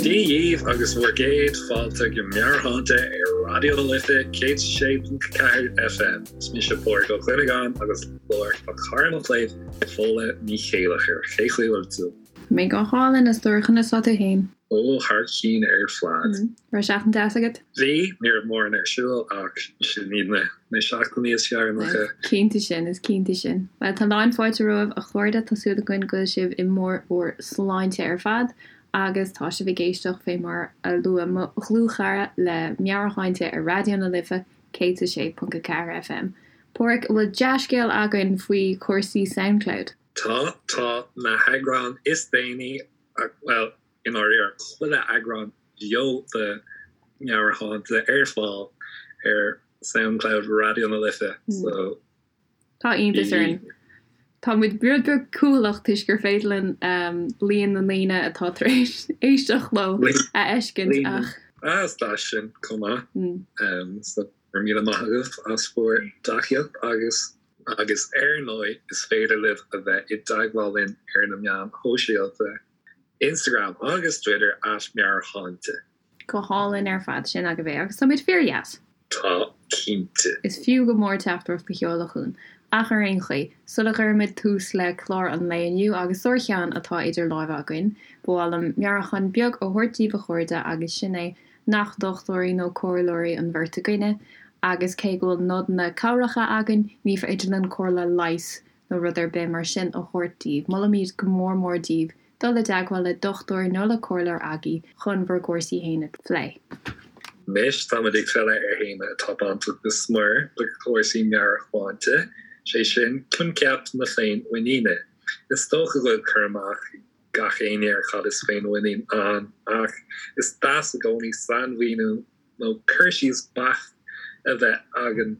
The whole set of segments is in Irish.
Dia dhíbh agus bhur gcéad fáilte go Meabhairshláinte ar Raidió na Life 106.4 FM. Is mise Pádraig Ó Cuinneagáin agus liom tá cara mo chléibh, Fódhla Ní Chéilleachair. Cén chaoi a bhfuil tú? Tá mé go hálainn, a stór, conas tá tú fhéin? Ó, thar cinn ar fad. Raibh seachtain deas agat? Bhí, ní raibh mórán ar siúl ach sin iad na seachtainí is fearr nach ea? Is cinnte sin, is cinnte sin. Bhuel, tá lán fáilte romhaibh a chairde, tá súil againn go bhfuil sibh i mbarr bhur sláinte ar fad agus tá sibh ag éisteacht fé mar a luaigh mo dhlúthchara le Meabhairshláinte ar Raidió na Life 106.4 FM. Páraic, an bhfuil dea-scéal againn faoi chúrsaí Soundcloud? Tá, tá na heagráin is déanaí, bhuel, i ndáiríre, chuile eagrán bheo de Meabhairshláinte ar fáil ar Soundcloud Raidió na Life, so. Tá iontas orainn. Tá muid rud beag cúthaileach toisc gur féidir linn líon na ndaoine atá tar éis éisteacht leo a fheiscint ach. Ah, is deas sin chomh maith. So, go raibh míle maith agaibh as bhur dtacaíocht agus. Agus ar ndóigh, is féidir libh a bheith i dteagmháil linn ar na meáin shóisialta, Instagram agus Twitter at Meabhairshláinte. Go hálainn ar fad, sin agaibh é, agus tá muid fíor-dheas. Tá, cinnte. Is fiú go mór teachtaireacht a sheoladh chugainn. Ach ar aon chaoi, sula gcuirimid tús le clár an lae inniu, agus sárcheann atá idir láimhe againn, ba mhaith liom meabhrúchán beag a thabhairt daoibh a chairde agus sin é nach dochtúirí nó comhairleoirí an bheirt againne, agus cé go bhfuil nodanna cabhracha againn, ní féidir linn comhairle leighis nó rud ar bith mar sin a thabhairt daoibh. Molaimid go mór mór daoibh dul i dteagmháil le dochtúir nó le comhairleoir agaibh chun bhur gcúrsaí fhéin a phlé. Anois táimid ag filleadh ar théama atá bainteach go smior le cúrsaí meabhairshláinte, sé sin, coincheap na féinmhuiníne. Is dócha go bhfuil cur amach ag gach éinne ar cad is féinmhuinín ann, ach is deas i gcónaí sainmhíniú nó cur síos beacht a bheith againn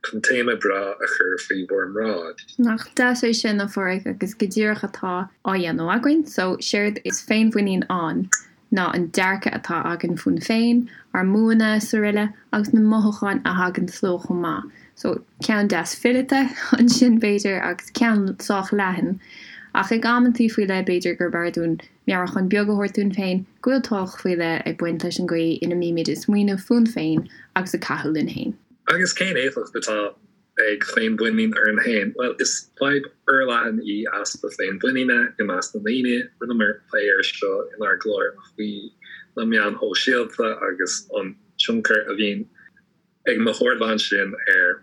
chun téama breá a chur faoi bhur mbráid. Nach deas é sin, a Pháraic, agus go díreach atá á dhéanamh againn. So, séard is féinmhuinín ann ná an dearcadh atá againn fúinn féin, ár mbuanna is aroile, agus na mothúcháin a thaganns leo chomh maith. So, ceann deas fileata ansin, b'fhéidir, agus ceann sách leathan. Ach ag amantaí faoi leith, b'fhéidir gurb fhearr dúinn meabhrúchán beag a thabhairt dúinn féin go bhfuil tábhacht faoi leith ag baint leis an gcaoi ina mbímid ag smaoineamh fúinn féin agus ag caitheamh linn féin. Agus cén éifeacht atá ag féinmhuinín orainn féin? Bhuel, is fadhb fhorleathan í easpa féinmhuiníne i measc na ndaoine. Rinneamar plé air seo inár gclár faoi na meáin shóisialta agus an tionchar a bhíonn ag na hardáin sin ar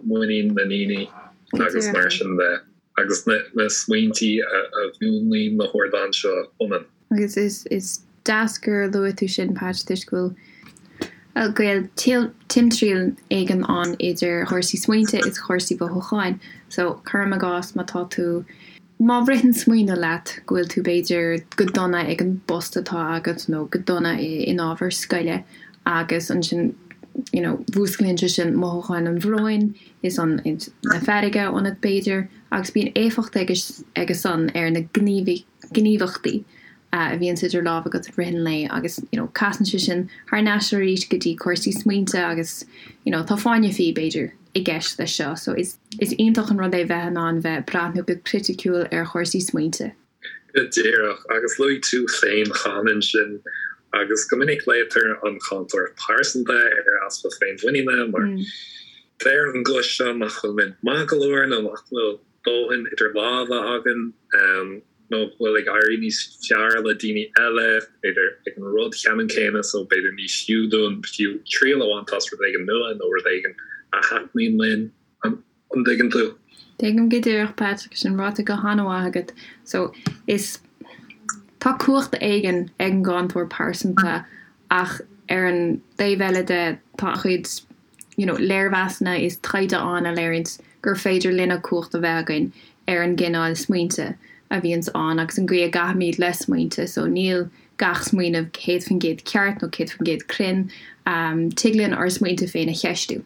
muinín na ndaoine agus mar sin de, agus na smaointí a mhúnlaíonn na hardáin seo ionainn. Agus is deas gur luaigh tú sin, Patch, toisc go bhfuil gaol timthriall éigin ann idir chúrsaí smaointe is chúrsaí mhothúcháin. So, cuirim i gcás, má tá tú, má ritheann smaoineamh leat go bhfuil tú b'fhéidir go dona ag an bpost atá agat nó go dona in ábhar scoile, agus ansin you know mhúsclaíonn sé sin mothúcháin an bhróin is an na feirge ionat b'fhéidir agus bíonn éifeacht aige san ar na gníomhaíochtaí a bhíonns idir lámha agat i rith an lae agus you know casann sé sin thar n-ais arís go dtí cúrsaí smaointe agus you know tá fáinne fí b'fhéidir i gceist leis seo so is is iontach an rud é bheith in ann bheith breathnú go criticiúil ar chúrsaí smaointe. Go díreach, agus luaigh tú féin cheana ansin, agus go minic glaotar an cáinteoir pearsanta ar easpa féinmhuiníne mar deir an guth seo nach bhfuil muid maith go leor nó nach bhfuil dóthain idir lámha againn nó go bhfuil ag éirí níos fearr le daoine eile, b'fhéidir ag an rud ceannann céanna so b'fhéidir ní fiú dúinn fiú triail a bhaint as rud éigin nua nó rud éigin a thaitníonn linn. An dtuigeann tú? Tuigim go díreach, Patrick, sin ráite go han-mhaith agat. So, is, tá cumhacht éigin ag an gcáinteoir pearsanta ach ar an dtaobh eile de tá an-chuid you know léirmheasanna is taighde ann a léiríonns gur féidir linne cumhacht a bheith againn ar an gcineál smaointe a bhíonns ann agus an gcaoi a gcaithimid le smaointe. So, níl gach smaoineamh 100% ceart nó 100% cruinn. Tig linn ár smaointe féin a cheistiú.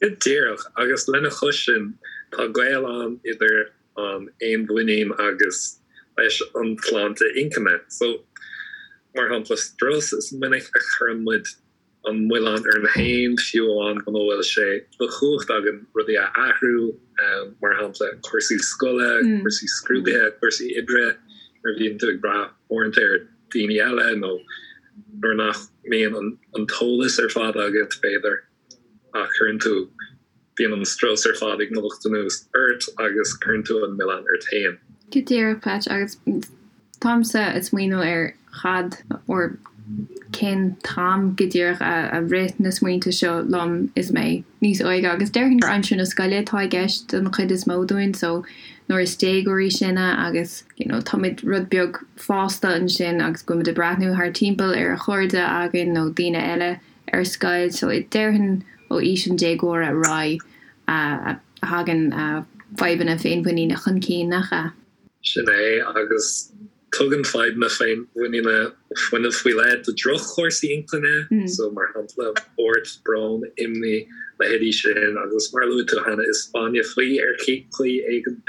Go díreach, agus lena chois sin, tá gaol ann idir an fhéinmhuinín agus leis an tsláinte inchinne. So, mar shampla, strus, is minic a chuireann muid an milleán orainn féin, fiú amháin muna bhfuil sé de chumhacht againn rudaí a athrú, mar shampla, cúrsaí scoile, cúrsaí scrúduithe, cúrsaí oibre, nuair a bhíonn tú ag brath uaireanta ar. daoine eile nó nuair nach mbíonn an t-eolas ar fad agat, b'fhéidir, ach cuireann tú, bíonn an strus ar fad ag imeacht anuas ort agus cuireann tú an milleán ort féin. Go díreach, Patch, agus táimse ag smaoineamh ar chad or cén t-am go díreach a rith na smaointe seo liom is mé níos óige agus déarfainn gur aimsir na scoile atá i gceist don chuid is mó dúinn so nuair is déagóirí sinne agus you know táimid rud beag fásta ansin agus go bhfuilimid ag breathnú thar timpeall ar chairde againn nó daoine eile ar scoil so déarfainn ó aois an déagóra ar aghaidh a thagann fadhbanna féinmhuiníne chun cinn, nach ea? Sin é, agus tugann fadhbanna féinmhuiníne fuinneamh faoi leith do dhroch-chúrsaí intinne, so mar shampla, buairt, brón, imní, leithéidí sin, agus mar a luaigh tú cheana, is fáinne fí ar chaoi éigin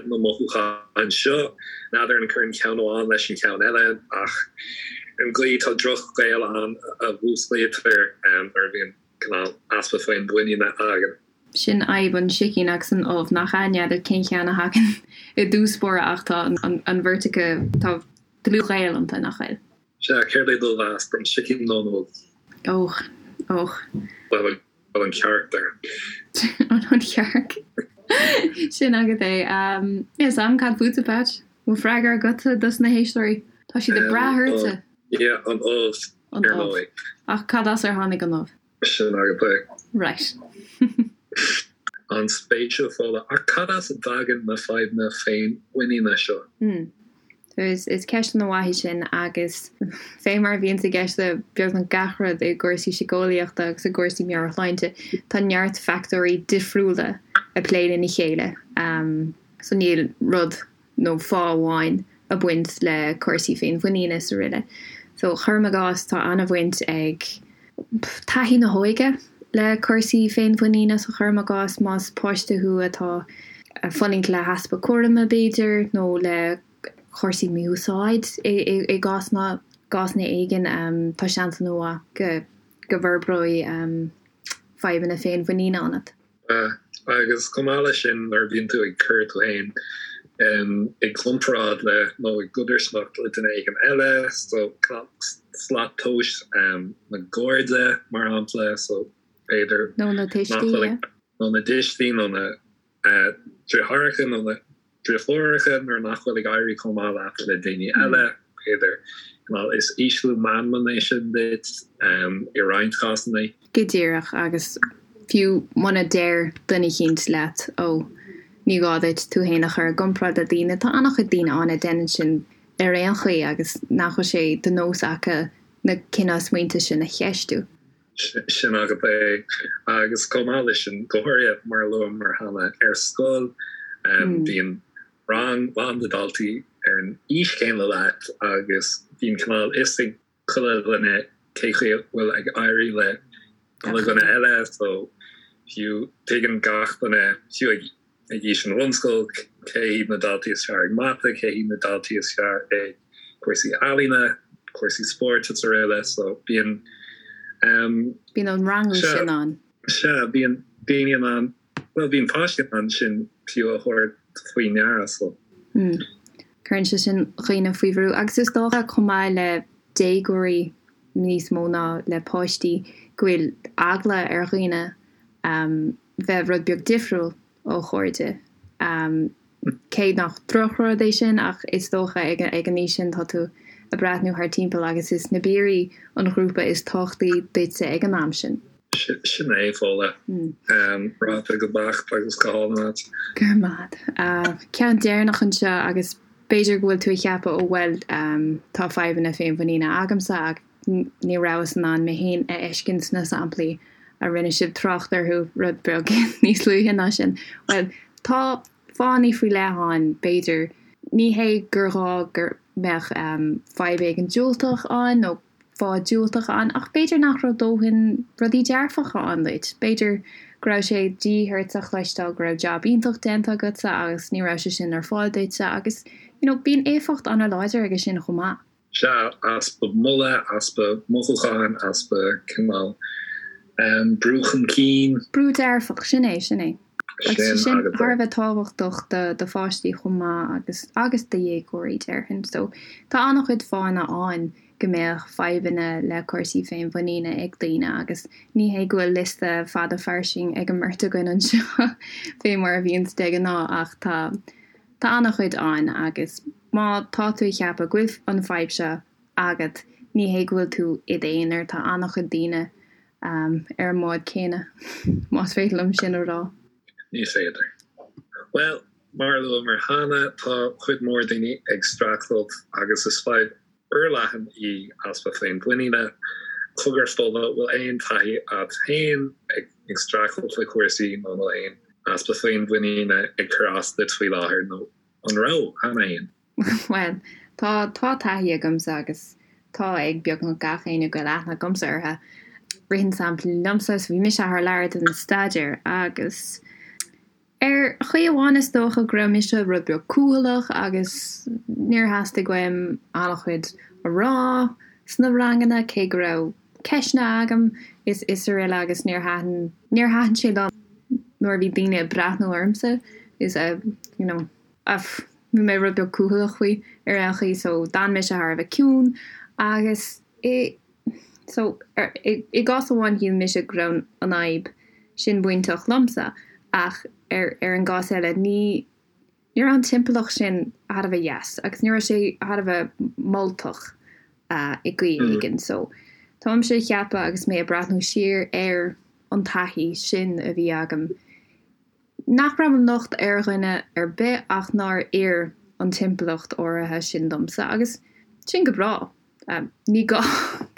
na mothúcháin seo. N'fheadar an gcuireann ceann amháin leis an cheann eile, ach ar an gcaoi tá droch-ghaol ann a mhúsclaítear nuair a bhíonn cineál easpa féinmhuiníne againn. Sin fhadhb an sicín agus an ubh, nach ea? N'fheadar cén cheann a thagann i dtús báire ach tá an bheirt acu, tá dlúthghaol iontu, nach bhfuil? Sea, céard é do mheas, an sicín nó an ubh? Och, och. Bhuel, an chearc there. An chearc. Sin agat é. Níl 's a'm cad fútsa, Patch? Bhfuil freagra agatsa dos na héisteoirí? Tá siad ag brath ortsa. Yeah, an ubh, ar ndóigh. Ach cad as ar tháinig an ubh? Sin agat é. Right. An-spéisiúil, Fódhla. Ach cad as a dtagann na fadhbanna féinmhuiníne seo? Hmm. Is ceist ana-mhaith í sin agus fé mar a bhíonns i gceist le beagnach gach rud i gcúrsaí síceolaíochta agus i gcúrsaí meabhairshláinte, tá neart factóirí difriúla ag plé lena chéile. So níl rud nó fáth amháin ag baint le cúrsaí féinmhuiníne is araile. So, cuirim i gcás, tá an-bhaint ag taithí na hóige le cúrsaí féinmhuiníne. So, cuirim i gcás, más páiste thú atá ag fulaingt le heaspa cúraim, b'fhéidir, nó le cúrsaí mí-úsáid i gcásanna, gcásanna éigin, tá seans an-mhaith go go bhforbróidh fadhbanna féinmhuiníne ionat. Agus chomh maith leis sin, nuair a bhíonn tú ag cur tú féin i gcomparáid le nó i gcodarsnacht le duine éigin eile, so slat tomhais na gcairde, mar shampla, so b'fhéidir Nó na tuistí, yeah. Nó na tuistí, nó na deartháireacha, nó na deirfiúracha nuair nach bhfuil ag éirí chomh maith leat le daoine eile, b'fhéidir. Is ísliú meanman é sin duit i roinnt cásanna. Go díreach, agus fiú muna deir duine eicínt leat, ó, ní gá duit tú fhéin a chur i gcomparáid le daoine, tá an-chuid daoine ann a deineann sin ar aon chaoi agus nach bhfuil sé de nós acu na cineál smaointe sin a cheistiú. Sin agat é. Agus chomh maith leis sin, go háirithe, mar a luamar cheana, ar scoil, bíonn rang lán de dhaltaí ar an aois chéanna leat agus bíonn cineál fhios ag chuile dhuine cé chaoi a bhfuil ag éirí le chuile dhuine eile so fiú tuigeann gach duine, fiú ag ag aois an bhunscoil, cé hiad na daltaí is fearr ag mata, cé hiad na daltaí is fearr ag cúrsaí ealaíne, cúrsaí spóirt is araile. So bíonn um. Bíonn an rangú sin ann. Sea, bíonn daoine in ann, bhuel bíonn páistí in ann sin fiú a thabhairt faoi ndeara so. Mm. Cuireann sé sin dhaoine faoi bhrú agus is dócha chomh maith le déagóirí níos mó ná le páistí go bhfuil eagla ar dhaoine um bheith rud beag difriúil ó chairde. Cé nach drochrud é sin ach is dócha ag an aois sin tá tú ag breathnú thar timpeall agus is na piaraí an ghrúpa is tábhachtaí duitse ag an am sin. Sin é, Fódhla. Ráite go beacht agus go hálainn agat. Go raibh maith agat. Ceann deireanach anseo agus b'fhéidir go bhfuil tú ag ceapadh ó bhuel tá fadhbanna féinmhuiníne agamsa ach Ní rabhas in ann mé féin a fheiscint sna samplaí a rinne sibh trácht orthu rud beag níos luaithe ná sin. Bhuel, tá fáthanna faoi leith ann, b'fhéidir. Ní hé gur ghá go mbeadh fadhb éigin diúltach ann nó fáth diúltach ann, ach b'fhéidir nach raibh dóthain rudaí dearfacha ann duit. B'fhéidir go raibh sé de dhíth ort a chloisteáil go raibh jab iontach déanta agatsa agus ní raibh sé sin ar fáil duitse agus, you know, bíonn éifeacht an-láidir aige sin chomh maith. Sea, easpa moladh, easpa mothúcháin, easpa cineál brú chun cinn. Brú dearfach, sin é, sin é. Agus sin thar a bheith tábhachtach do do pháistí chomh maith agus agus do dhéagóirí déarfainn. So tá an-chuid fáthanna ann go mbeadh fadhbanna le cúrsaí féinmhuiníne ag daoine agus ní hé go bhfuil liosta fada fairsing ag an mbeirt againn anseo fé mar a bhíonns de ghnáth ach tá tá an-chuid ann agus má tá tú ag ceapadh go bhfuil an fadhb seo agat ní hé go bhfuil tú i d'aonar tá an-chuid daoine ar an mbád céanna, más féidir liom sin a rá. Ní féidir. Bhuel, mar a luamar cheana, tá cuid mhór daoine ag streachailt agus is fadhb fhorleathan í easpa féinmhuiníne. Cogar Fódhla, bhfuil aon taithí agat féin ag streachailt le cúrsaí nó an bhfuil aon easpa féinmhuiníne ag cur as duit faoi láthair nó an raibh cheana féin? Bhuel, tá, tá taithí agamsa agus tá ag beagnach gach éinne go bhfuil aithne agamsa orthu. Ritheann sampla liomsa, so bhí mise thar lear don staidéar agus ar chaoi amháin is dócha go raibh mise rud beag cúthaileach agus níor theastaigh uaim an-chuid a rá sna ranganna cé go raibh ceisteanna agam is is araile agus níor thaitin, níor thaitin sé liom nuair a bhí daoine ag breathnú ormsa is a, you know. Bhí mé rud beag cúthaileach faoi ar aon chaoi so d'fhan mise thar a bheith ciúin agus i so i i gcás amháin shíl mise go raibh an fhadhb sin bainteach liomsa ach ar ar an gcás eile ní ní raibh an timpeallacht sin thar a bheith deas agus ní raibh sé thar a bheith moltach i gcaoi éigin so táimse ag ceapadh agus mé ag breathnú siar ar an taithí sin a bhí agam Nach raibh an locht ar dhuine ar bith ach nár oir an timpeallacht áirithe sin domsa agus sin go breá. Ní gá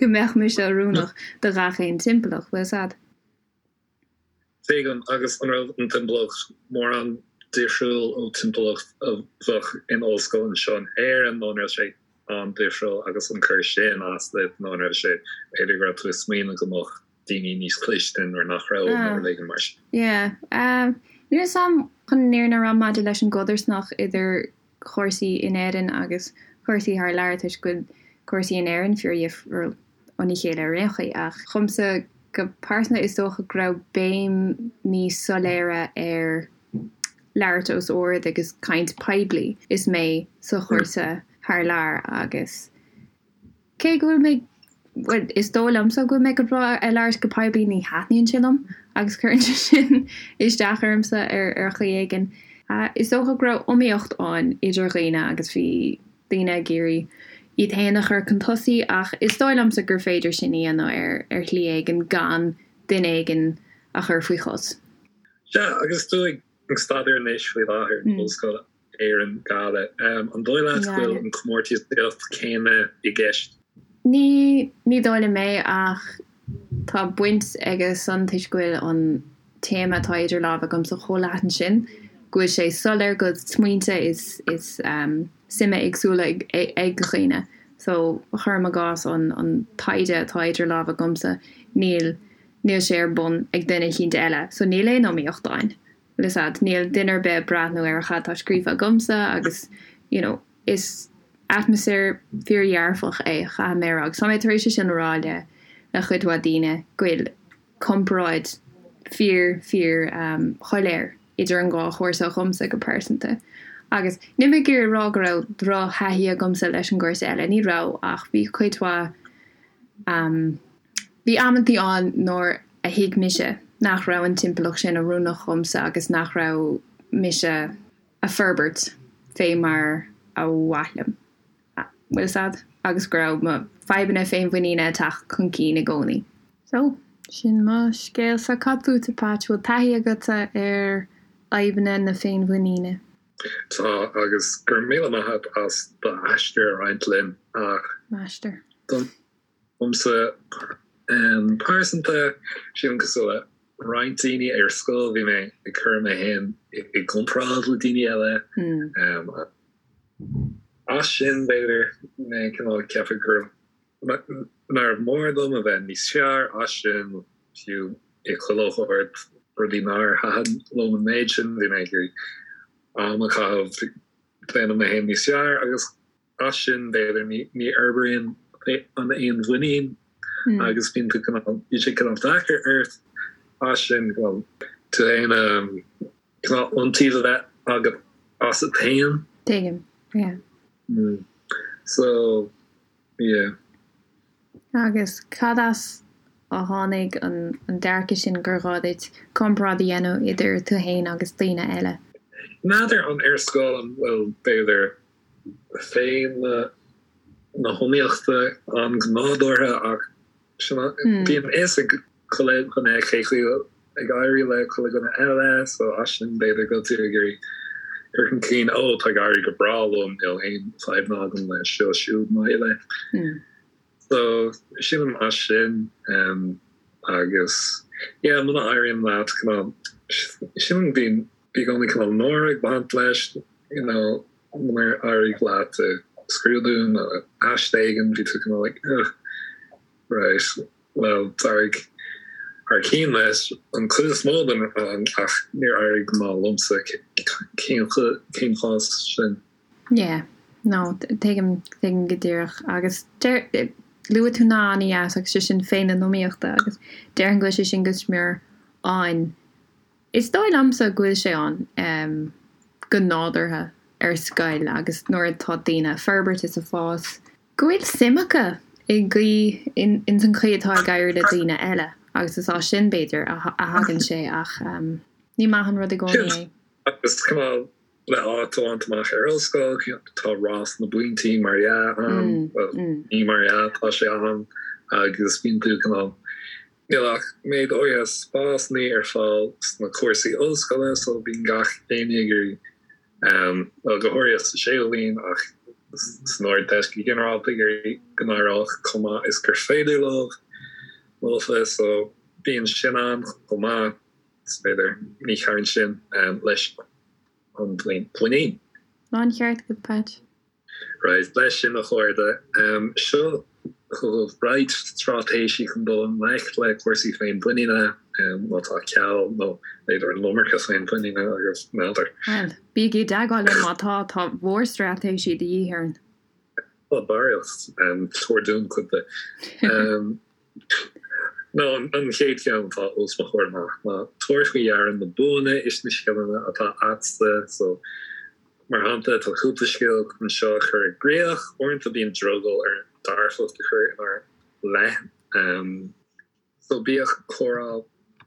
go mbeadh mise oiriúnach do ghach aon timpeallacht, bhfuil 'fhios a'd? Tuigim, agus an raibh an timpeallacht mórán difriúil ó timpeallacht a bheadh in ollscoil anseo in Éirinn nó an raibh sé an-difriúil agus an cur sin as duit nó an raibh sé, b'fhéidir go raibh tú ag smaoineamh go mbeadh daoine níos cliste nuair nach raibh nó rud éigin mar sin. Yeah. Níl 'fhios a'm chun an fhírinne a rá maidir leis an gcodarsnacht idir chúrsaí in Éirinn agus cúrsaí thar lear toisc go bhfuil cúrsaí in Éirinn fíordhifriúil óna chéile ar aon chaoi ach dhomsa go pearsanta is dócha go raibh béim níos soiléire ar labhairt os ard agus caint poiblí is mé sa chúrsa thar lear agus Cé go bhfuil mé, bhuel, is dóigh liomsa go bhfuil mé go breá ag labhairt go poiblí, ní thaitníonn sé liom agus cuireann sé sin isteach ormsa ar ar chaoi éigin. Is dócha go raibh iomaíocht ann idir dhaoine agus bhí daoine ag iarraidh iad féin a chur chun tosaigh ach is dóigh liomsa gur féidir sin a dhéanamh ar ar shlí éigin gan duine éigin a chur faoi chos. Sea, agus tú ag staidéar anois faoi láthair in Ollscoil Éireann, Gaillimh. An dóigh leat go bhfuil an comórtasaíocht céanna i gceist? Ní, ní dóigh liom é ach tá baint aige san toisc go bhfuil an téama atá idir lámha agamsa chomh leathan sin go bhfuil sé soiléir go bhfuil smaointe is, is suime éagsúla ag, ag dhaoine. So, cuirim i gcás an, an taighde atá idir lámha agamsa, níl, níl sé ar bun ag duine eicínt eile. So níl aon iomaíocht ann. Bhfuil 'fhios a'd, níl duine ar bith ag breathnú ar cad tá scríofa agamsa agus you know is atmaisféar fíordhearfach é, caithfidh mé a rá. Agus tá mé tar éis é sin a rá le le cuid mhaith daoine go bhfuil comparáid fíor fíor um shoiléir idir an dhá chúrsa dhomsa go pearsanta. Agus níl mé ag iarraidh a rá go raibh drochthaithí agamsa leis an gcúrsa eile, ní raibh ach bhí cuid mhaith um Bhí amantaí ann nuair a thuig mise nach raibh an timpeallacht sin oiriúnach dhomsa agus nach raibh mise a' forbairt fé mar a mhaith liom, bhfuil 'fhios a'd, agus go raibh mo fadhbanna féinmhuiníne ag teacht chun cinn i gcónaí. So, sin mo scéalsa. Cad fútsa, Patch? Bhfuil taithí agatsa ar fhadhbanna na féinmhuiníne? Tá, agus go raibh míle maith agat as d'aistear a roinnt linn, ach. M'aistear. Domsa pearsanta, sílim cosúil le roinnt daoine ar scoil, bhí mé ag cur mé féin i gcomparáid le daoine eile. As sin, b'fhéidir, mé cineál ag ceapadh gur nárbh mhór dom a bheith níos fearr as sin, fiú i chuile shórt rudaí nár thaitin liom an méid sin, bhí mé ag iarraidh am a chaitheamh déanamh mé féin níos fearr agus As sin, b'fhéidir, ní fhorbraíonn an fhéinmhuinín agus bíonn tú cineál, bíonn sé cineál deacair ort as sin, cineál, tú féin a. Cineál iontaoibh a bheith agat asat féin. Tuigim, yeah. So, yeah. Agus cad as a tháinig an dearcadh sin gur ghá duit comparáid a dhéanamh idir tú féin agus daoine eile? N'fheadar an ar scoil an bhfuil b'fhéidir féith na hiomaíochta ann go nádúrtha ach sin bíonn a fhios ag chuile dhuine cé chaoi ag éirí le chuile dhuine eile so as sin b'fhéidir go bhfuil tú ag iarraidh cur chun cinn ó tá ag éirí go breá liom níl aon fadhbanna agam le seo siúd nó eile. So sílim as sin agus yeah muna éiríonn leat cineál sílim bíonn i gcónaí cineál náire ag baint leis you know munar éirigh leat i scrúdú nó aiste éigin bhí tú cineál like ugh right well d'éirigh thar cinn leis an chuid is mó den rang ach níor éirigh go maith liomsa cén cén fáth sin? Yeah, no, tuigim, tuigim go díreach. Agus deir, luaigh tú nath an-dheas agus sé sin féith na hiomaíochta agus déarfainn go bhfuil sé sin go smior ann. Is dóigh liomsa go bhfuil sé ann go nádúrtha ar scoil agus nuair atá daoine ag forbairt is ag fás, go bhfuil suim acu i gcaoi, ins an chaoi atá ag éirí le daoine eile agus is as sin, b'fhéidir, a thagann sé ach ní maith an rud i gcónaí é. Agus cineál le áit a bhaint amach ar ollscoil, tá rás na bpointí mar dhea ann, bhuel, ní mar dhea, tá sé ann agus bíonn tú cineál, níl ach méid áirithe spásanna ar fáil sna cúrsaí ollscoile so bíonn gach éinne ag iarraidh, bhuel, go háirithe sa séú bhliain ach san Ardteist go ginearálta ag iarraidh go n-éireodh chomh maith is gur féidir leo, leofa so bíonn sin ann chomh maith. Is b'fhéidir, ní chabhraíonn sin leis an mhuinín. Láncheart agat, Patch. Right, leis sin a chairde, seo chugaibh roinnt straitéisí chun dul i ngleic le cúrsaí féinmhuiníne, má tá ceal nó b'fhéidir an iomarca féinmhuiníne agaibh, n'fheadar. Bhuel, bígí i dteagmháil linn má tá, tá mórstraitéisí de dhíth orainn. Tá barraíocht, tabhair dúinn cuid de. Nó an chéad cheann atá os mo chomhair amach ná tabhair faoi deara na buanna is na scileanna atá agatsa. So, mar shampla, tá cúpla scil chun seo a chur i gcrích. Uaireanta bíonn drogall orainn dearfacht a chur inár leith. So bíodh comhrá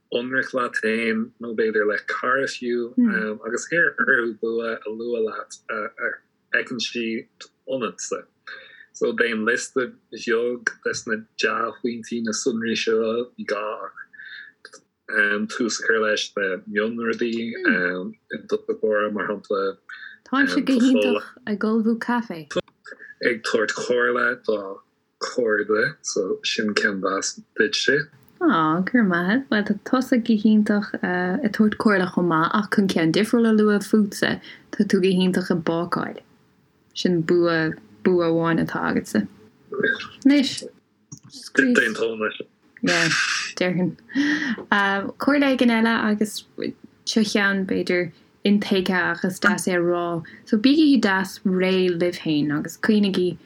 ionraic leat féin, nó b'fhéidir le cara fiú, agus iarr orthu bua a lua leat a fheiceann siad ionatsa. So déan liosta beag des na dea-phointí, na sonraí seo, ní gá ach tús a chur leis le mionrudaí i dtosach báire, mar shampla. Táimse go hiontach ag ullmhú caife. Ag tabhairt comhairle do chairde, so sin ceann deas duitse. Aw, go raibh maith agat. Bhuel, tá tusa go hiontach ag tabhairt comhairle chomh maith, ach chun ceann difriúil a lua fútsa, tá tú go hiontach ag bácáil. Sin bua, bua amháin atá agatsa. Anois, scríos. D'aontóinn leis. Yeah, déarfainn. Comhairle éigin eile agus seo ceann, b'fhéidir, intuigthe ach is deas é a rá. So bígí deas réidh libh féin agus cuimhnigí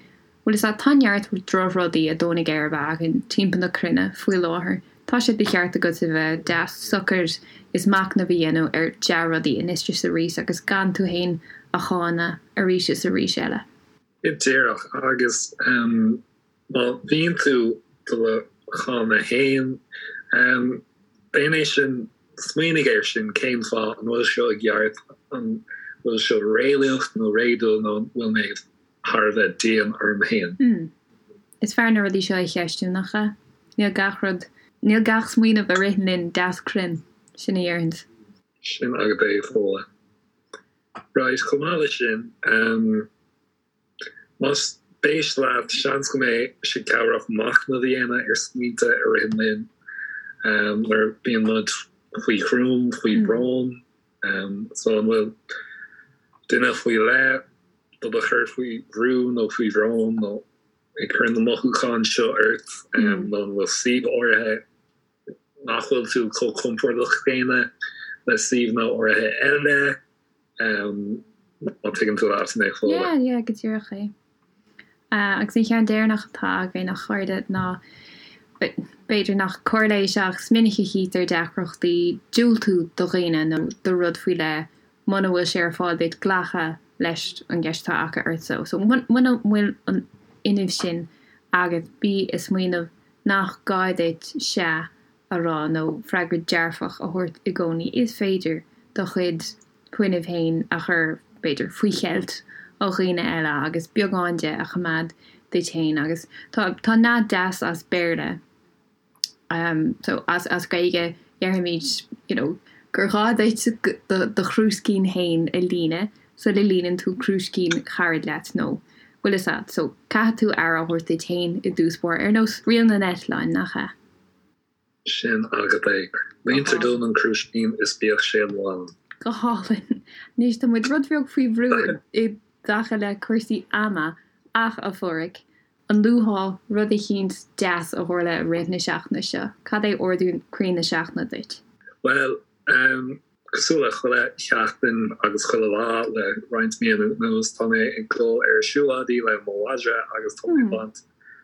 Bhuel, is ea, tá neart drochrudaí ag dó na geirbe againn timpeall na cruinne faoi láthair. Tá sé de cheart agat a bheith deas socair is machnamh a dhéanamh ar dea-rudaí anois is arís agus gan tú fhéin a cháineadh arís is arís eile. Go díreach, agus má bhíonn tú do do cháineadh fhéin, déan é sin, smaoinigh air sin, cén fáth, an bhfuil seo i gceart, an bhfuil seo réalaíoch nó réadúil nó an bhfuil mé thar a bheith dian orm féin. Mm. Is fearr na rudaí seo a cheistiú, nach ea? Níl gach rud, níl gach smaoineamh a ritheann linn deas cruinn, sin a déarfainnse. Sin agat é, Fódhla. Right, chomh maith leis sin, ehm, más spéis leat, seans go mbeidh sé cabhrach machnamh a dhéanamh ar smaointe a ritheann linn, ehm, nuair a bíonn muid faoi chruam, faoi bhrón. Ehm, so an bhfuil duine faoi leith do do chur faoi bhrú nó faoi bhrón nó ag cur na mothúcháin seo ort nó an bhfuil suíomh áirithe nach bhfuil tú chomh compordach céanna le suíomhanna áirithe eile má tuigeann tú leat mé Fódhla. Yeah, yeah, go díreach é. Agus an cheann deireanach atá againn, a chairde, ná. B'fhéidir nach cor leis ach is minic a chítear deacrachtaí diúltú do dhaoine nó do rud faoi leith muna bhfuil sé ar fáil duit glacadh leis an gceist atá acu ort. So muna bhfuil an fhuinneamh sin agat bí ag smaoineamh nach gá duit 'sea' a rá nó freagra dearfach a thabhairt i gcónaí. Is féidir do chuid fuinnimh féin a chur, b'fhéidir, faoi cheilt ó dhaoine eile agus beagán de a choimeád duit féin. Agus tá, tá nath deas as Béarla, so as, as Gaeilge déarfaimid, you know, gur ghá duit do, do chrúiscín féin a líonadh sula líonann tú crúiscín carad leat nó, bhfuil fhios a'd. So caithfidh tú aire a thabhairt duit féin i dtús báire, ar nós riail na n-eitleán, nach ea? Sin agat é. Líontar dom an crúiscín is bíodh sé lán. Go hálainn. Anois tá muid rud beag faoi bhrú i dtaca le cúrsaí ama ach, a Phádraig, an luafá rud eicínt deas a tharla i rith na seachtaine seo? Cad é ardú croí na seachtaine duit? Bhuel, Cosúil le chuile sheachtain agus chuile lá le roinnt míonna anuas, tá mé ag dul ar siúlóidí le mo mhadra agus tá mé ag baint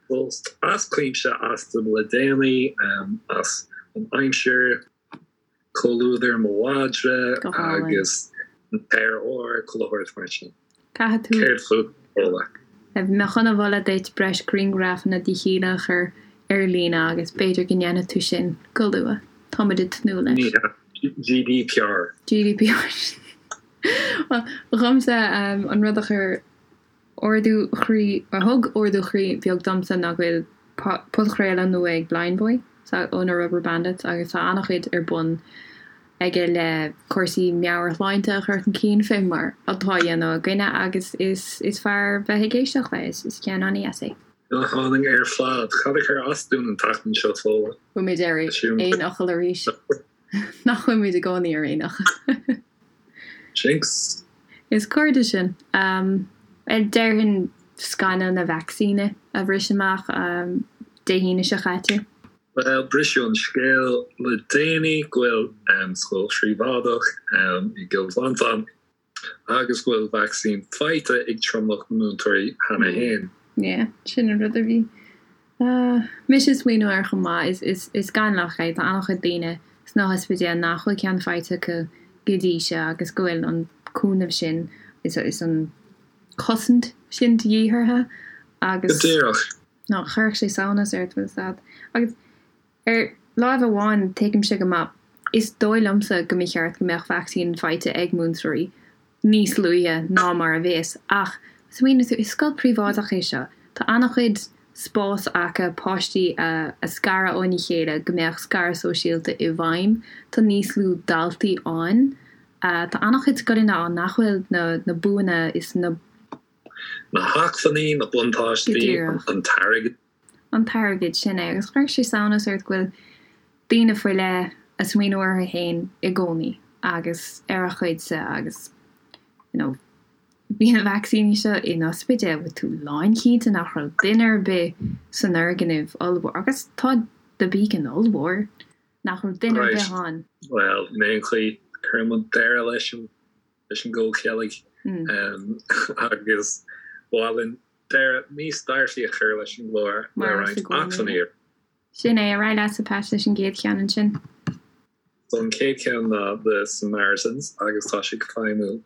sult as cuimse astu le déanaí, as an aimsir, comhluadar mo mhadra agus an t-aer úr, chuile shórt mar sin. Caithfidh tú. Céard fút, Fódhla? Bhí mé chun a mholadh duit breis grianghrafanna de Shíle a chur ar líne agus b'fhéidir go ndéanfaidh tú sin go luath. Tá muid ag tnúth leis. Ní hea. GDPR. GDPR. Bhuel, dhomsa, an rud a chuir ardú chroí, a thug ardú chroí beag domsa ná go bhfuil podchraoladh nua ag Blindboy ó na Rubberbandits agus tá an-chuid ar bun aige le cúrsaí meabhairshláinte a chur chun cinn fé mar atá á dhéanamh againne agus is is fearr bheith ag éisteacht leis, is ceann an-dheas é. Go hálainn ar fad. Cad a chuir as dúinn an tseachtain seo, Fódhla? Bhfuil muid ar aon fhocal arís? Nach bhfuil muid i gcónaí ar aon fhocal? Jinx! Is cairde sinn. Déarfainn scannal na vacsaíne a bhris amach Dé hAoine seo caite. Bhuel, briseadh an scéal le déanaí go bhfuil scoil phríobháideach i gCill Mhantáin agus go bhfuil vacsaín faighte ag tromlach na múinteoirí cheana féin. Yeah, sin an rud a bhí mise ag smaoineamh air chomh maith. Is scannalach é, tá an-chuid daoine sna hospidéil nach bhfuil ceann faighte acu go dtí seo agus go bhfuil an cúnamh sin is an chosaint sin de dhíth orthu agus. Go díreach. Nó chuirfeadh sé samhnas ort, bhfuil fhios a'd. Agus ar láimh amháin, tuigimse go maith, is dóigh liomsa go mba cheart go mbeadh vacsaín faighte ag múinteoirí níos luaithe ná mar a bheas, ach smaoinigh tú, is scoil príobháideach é seo, tá an-chuid spás acu páistí a scaradh óna chéile go mbeadh scaradh sóisialta i bhfeidhm, tá níos lú daltaí ann, tá an-chuid scoileanna ann nach bhfuil na buanna is na. Na hacmhainní, na buntáistí, an t-airgead. An t-airgead, sin é. Agus chuirfeadh sé samhnas ort go bhfuil daoine faoi leith a' smaoineamh orthu fhéin i gcónaí agus ar a gcuidse agus you know bhí na vacsaíní seo in ospidéal, bhfuil tú lánchinnte nach raibh duine ar bith san fhoirgneamh ollmhór agus tá The Beacon ollmhór, nach raibh duine ar bith ann. Bhuel, in aon chaoi, cuireann muid deireadh leis an leis an gcomhcheilg agus ba mhaith linn deireadh níos dearfaí a chur leis an gclár le roinnt acmhainní. Sin é, ar aghaidh leatsa Pat leis an gcéad cheann ansin. So an chéad cheann ná The Samaritans agus tá sé ag feidhmiú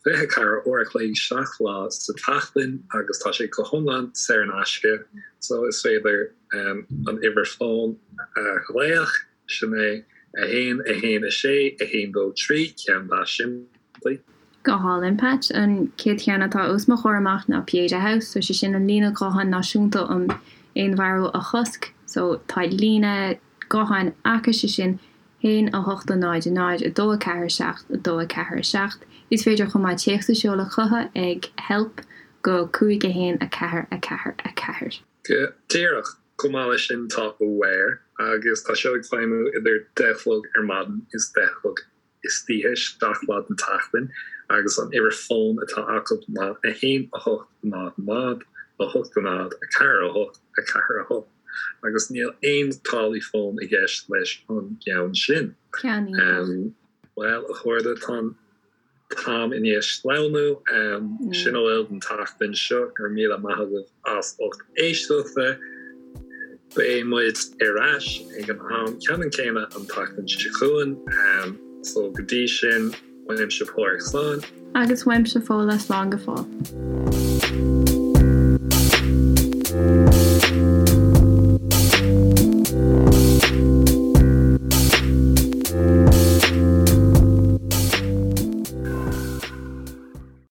24 uair a chloig 7 lá sa tseachtain agus tá sé go hiomlán saor in aisce so is féidir an uimhir fóin a ghlaoch Sin é 1, 1, 6, 1, 2, 3, ceann deas simplí. Go hálainn, Pat. An chéad cheann atá os mo chomhair amach ná Pieta House. So sé sin an líne ghutháin náisiúnta um fhéinmharú a chosc. So tá líne gutháin acu, sé sin 1 8 0 0 2 4 7 2 4 7. Is féidir chomh maith téacs a sheoladh chucu ag help go 5 1 4 4 4. Go díreach. Chomh maith leis sin tá Aware agus tá seo ag feidhmiú idir 10 a chlog ar maidin is 10 a chlog istoíche, 7 lá den tseachtain agus an uimhir fóin atá acu ná 1 8 0 0 8 0 4 8 4 8 agus níl aon táillí fóin i gceist leis an gceann sin. Ceann iontach. Bhuel, a chairde, tá an. t-am i ndiaidh sleamhnú. Sin a bhfuil don tseachtain seo. Go raibh míle maith agaibh as ucht éisteachta. Beidh muid ar ais ag an am ceannann céanna an tseachtain seo chugainn, so go dtí sin, uaimse Pádraig slán. Agus uaimse Fódhla slán go fóill.